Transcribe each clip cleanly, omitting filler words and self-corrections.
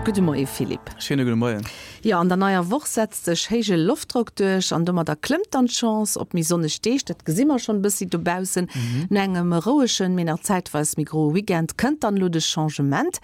Gudde Moie Philippe. Schéine gudde Moien. Jo, an der neier Woch setzt sech héije Loftdrock duerch an domadder klëmmt dann d'Chance op méi sonneg Deeg. Dat gesi mer schonn e bëssi dobaussen. No engem rouegen, mee nach zäitweis méi groe Weekend kënnt dann elo de Changement.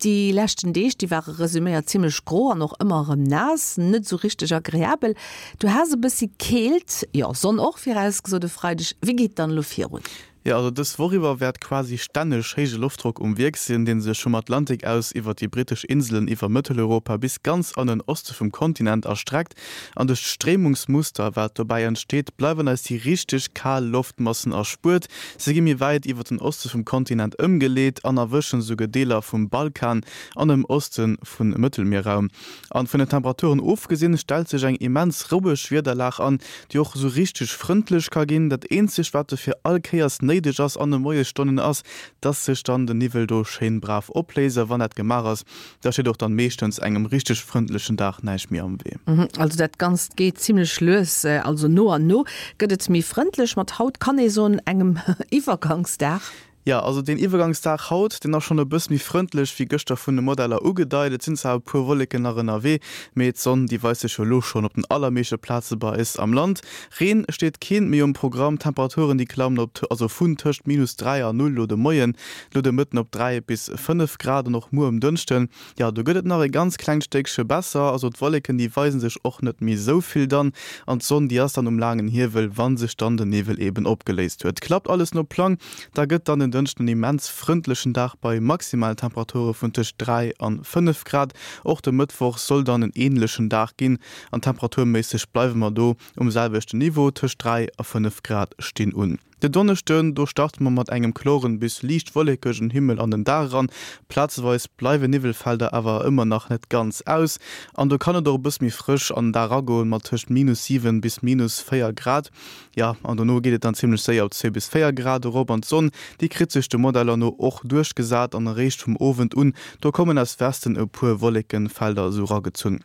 Déi leschten Deeg, déi ware resuméiert zimmlech gro an och ëmmer erëm naass, net esou richteg agreabel. Du has e bëssi Keelt, jo Sonn och virausgesot e Freideg. Wéi geet et dann elo virun? Jo, also dës Woch iwwer wäert quasi stänneg héije Loftdrock um Wierk sinn, dee sech vum Atlantik aus iwwert déi brittesch Inselen, iwwer Mëtteleuropa bis ganz an den Oste vum Kontinent erstreckt. An duerch d'Stréimungsmuster, wat dobäi entsteet, bleiwen eis déi richteg kal Loftmassen erspuert. Se gi méi wäit iwwer den Oste vum Kontinent ëmgeleet an erwëschen esouguer Deeler vum Balkan an dem Oste vum Mëttelmierraum. An vun den Temperaturen ofgesinn, stellt sech eng immens roueg Wiederlag an, déi och esou richteg frëndlech ka ginn. Dat eenzegt, wat dofir all Kéiers néideg ass an de Moiesstonnen, ass, dass sech dann de Niwwel do schéin brav opléist. A wann dat gemaach ass, Da steet och dann meeschtens engem richteg frëndlechen Dag näischt méi am Wee. Also dat Ganzt geet zimlech lues, also no an no gëtt et méi frëndlech. Mat haut kann ee soen, engem Iwwergangsdag. Jo, also deen Iwwergangsdag haut, deen ass schonn e bëss méi frëndlech wéi gëschter vun de Modeller ugedeit. Et sinn zwar e puer Wolleken nach ënnerwee, mee d'Sonn déi weist sech jo elo schonn op den allermeeschte Plaze bei eis am Land. Reen steet keen méi um Programm, d'Temperaturen déi klammen op, also vun tëscht minus 3 a 0 lo de Moien, Lo de Mëtten op 3 bis 5 Grad an och muer um Dënschden, jo do gëtt et nach e ganz klengt Stéckche besser. Also d'Wolleken déi weisen sech och net méi esou vill dann an d'Sonn déi ass dann um laangen Hiewel, wann sech dann den Niwwel eben opgeléist huet. Klappt alles no Plang, da gëtt dann den Dënschden en immens frëndlechen Dag bei maximalen Temperature vun tëscht 3 an 5 Grad. Och de Mëttwoch soll dann en änlechen Dag ginn an temperaturméisseg bleiwe mer do um selwechten Niveau, tëscht 3 a 5 Grad stinn un. Den Donneschden, do starte mer mat engem kloren bis liicht wollekegen Himmel an den Dag eran. Plazeweis bleiwe Niwwelfelder awer ëmmer nach net ganz aus an do kann et och e bësse méi frësch an den Dag eragoen, mat tëscht minus 7 bis minus 4 Grad. Jo, an dono geet et dann zimmlech séier op 2 bis 4 Grad erop an d'Sonn, déi kritt sech de Modeller no och duerchgesat an eréischt vum Owend un, do kommen aus Westen e puer Wollekenfelder esou eragezunn.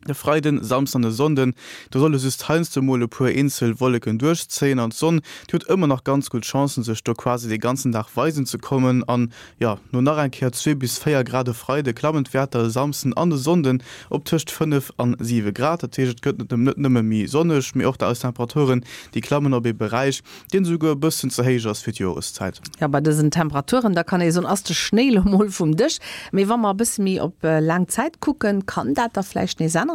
De Freiden, Samsden an e Sonnden, do solle just heiansdo mol e puer eenzel Wolleken duerchzéien an d'Sonn, déi huet ëmmer nach ganz gutt Chancen, sech do quasi de ganzen Dag weisen ze kommen. An jo, no nach eng Kéier 2 bis 4 Grad e Freide klammen d'Wäerter e Samsden an e Sonnden op tëscht 5 an 7 Grad. Dat heescht, et gëtt net nëmme méi sonneg, mee och eis Temperaturen, déi klammen op ee Beräich, deen esouguer e bëssen ze héich ass fir d'Joreszäit. Jo, bei dësen Temperaturen, da kann ee soen, ass de Schnéi lo mol vum Dësch. Mee wa mer e bësse méi op laang Zäit kucken, kann dat da vläicht nees änneren?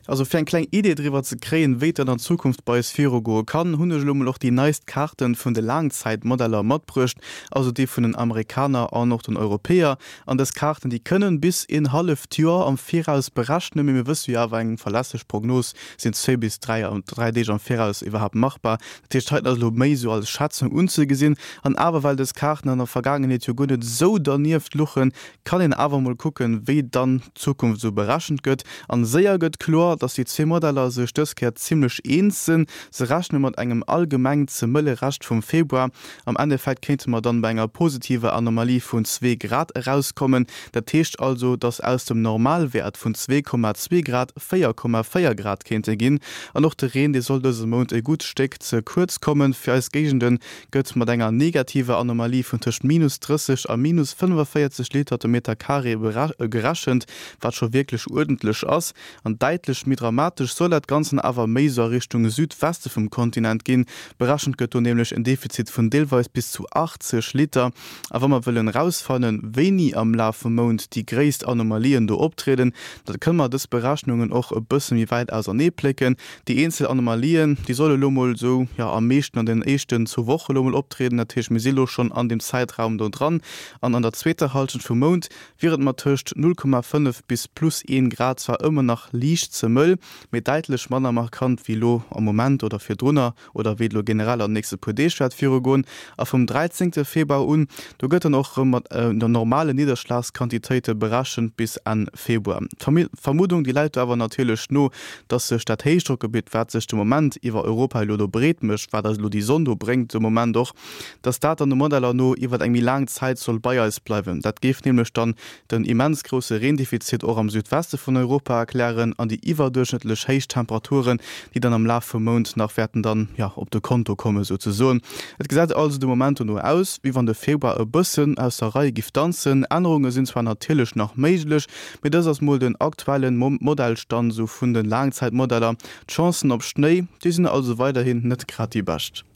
Also fir eng kleng Idee driwwer ze kréien, wéi et dann an Zukunft bei eis virugoe kann, hunn ech elo mol och déi neist Kaarten vun de Laangzäitmodeller matbruecht, also déi vun den Amerikaner an och den Europäer. An dës Kaarten, déi kënnen bis een halleft Joer am Viraus berechnen, mee mir wësse jo awer, eng verlässlech Prognos sinn zwéi bis 3 3 Deeg am Viraus iwwerhaapt machbar. Dat heescht, heiten ass elo méi esou als Schätzung unzegesinn. An awer, well dës Kaarten an der Vergaangenheet jo guer net esou dernieft luchen, kann een awer emol kucken, wéi dann d'Zukunft esou berechent gëtt. An séier gëtt kloer, dass déi zwee Modeller sech dës Kéier zimlech eens sinn. Se rechne mat engem allgemeng ze mëlle Rescht vum Februar. Am Endeffekt kéinte mer dann bei enger positiver Anomalie vun zwee Grad erauskommen. Dat heescht also, dass aus dem Normalwäert vun 2,2 Grad 4,4 Grad kéinte ginn. An och de Reen, dee soll dëse Mount e gutt Stéck ze kuerz kommen. Fir eis Géigende gëtt mat enger negativer Anomalie vun tëscht minus 30 a minus 45 Liter de Meter Carré gerechent, wat scho wierklech uerdentlech ass. An däitlech méi dramatesch soll dat Ganzen awer méi sou a Richtung Südweste vum Kontinent ginn. Berechent gëtt do nämlech en Defizit vun deelweis bis zu 80 Liter. A wa mer wëllen erausfannen, wéini am Laf vum Mount déi gréisst Anomalien do optrieden, da kënne mer dës Berechnungen och e bësse méi wäit ausernee plécken. Déi eenzel Anomalien, déi solle lo mol esou, jo, am meeschten an den éischten zwou Woche lo mol optrieden. Dat heescht, mir si lo schonn an deem Zäitraum do dran. An an der zweeter Hallschent vum Mount wier et mat tëscht 0,5 bis plus 1 Grad zwar ëmmer nach liicht ze mëll, mee däitlech manner markant wéi lo am Moment oder virdrunner. oder wéi et elo generell an den nächste puer Deeg wäert virugoen. A vum 13 Februar un, do gëtt dann och erëm mat der normalen Nidderschlagsquantitéite berechent bis Enn Februar. D'Vermuddung, déi läit do awer natierlech no, dass sech dat Héichdrockgebitt, wat sech de Moment iwwer Europa elo do breet mécht, wat eis elo déi Sonn do bréngt de Moment och, dass dat dann de Modeller no iwwer eng méi laang Zäit soll bei eis bleiwen. Dat géif nämlech dann den immens grousse Reendefizit och am Südweste vun Europa erklären an déi iwwer. iwwerduerchschnëttlech héich Temperaturen, déi dann am Laf vum Mount nach wäerten dann, jo, op de Konto komme souzesoen. Et gesäit also de Moment dono aus, wéi wann de Februar e bëssen aus der Rei giff danzen. Ännerunge sinn zwar natierlech nach méiglech, mee dëst ass mol den aktuellen Modellstand esou vun de Laangzäitmodeller. D'Chancen op Schnéi, déi sinn also weiderhin net grad déi bescht.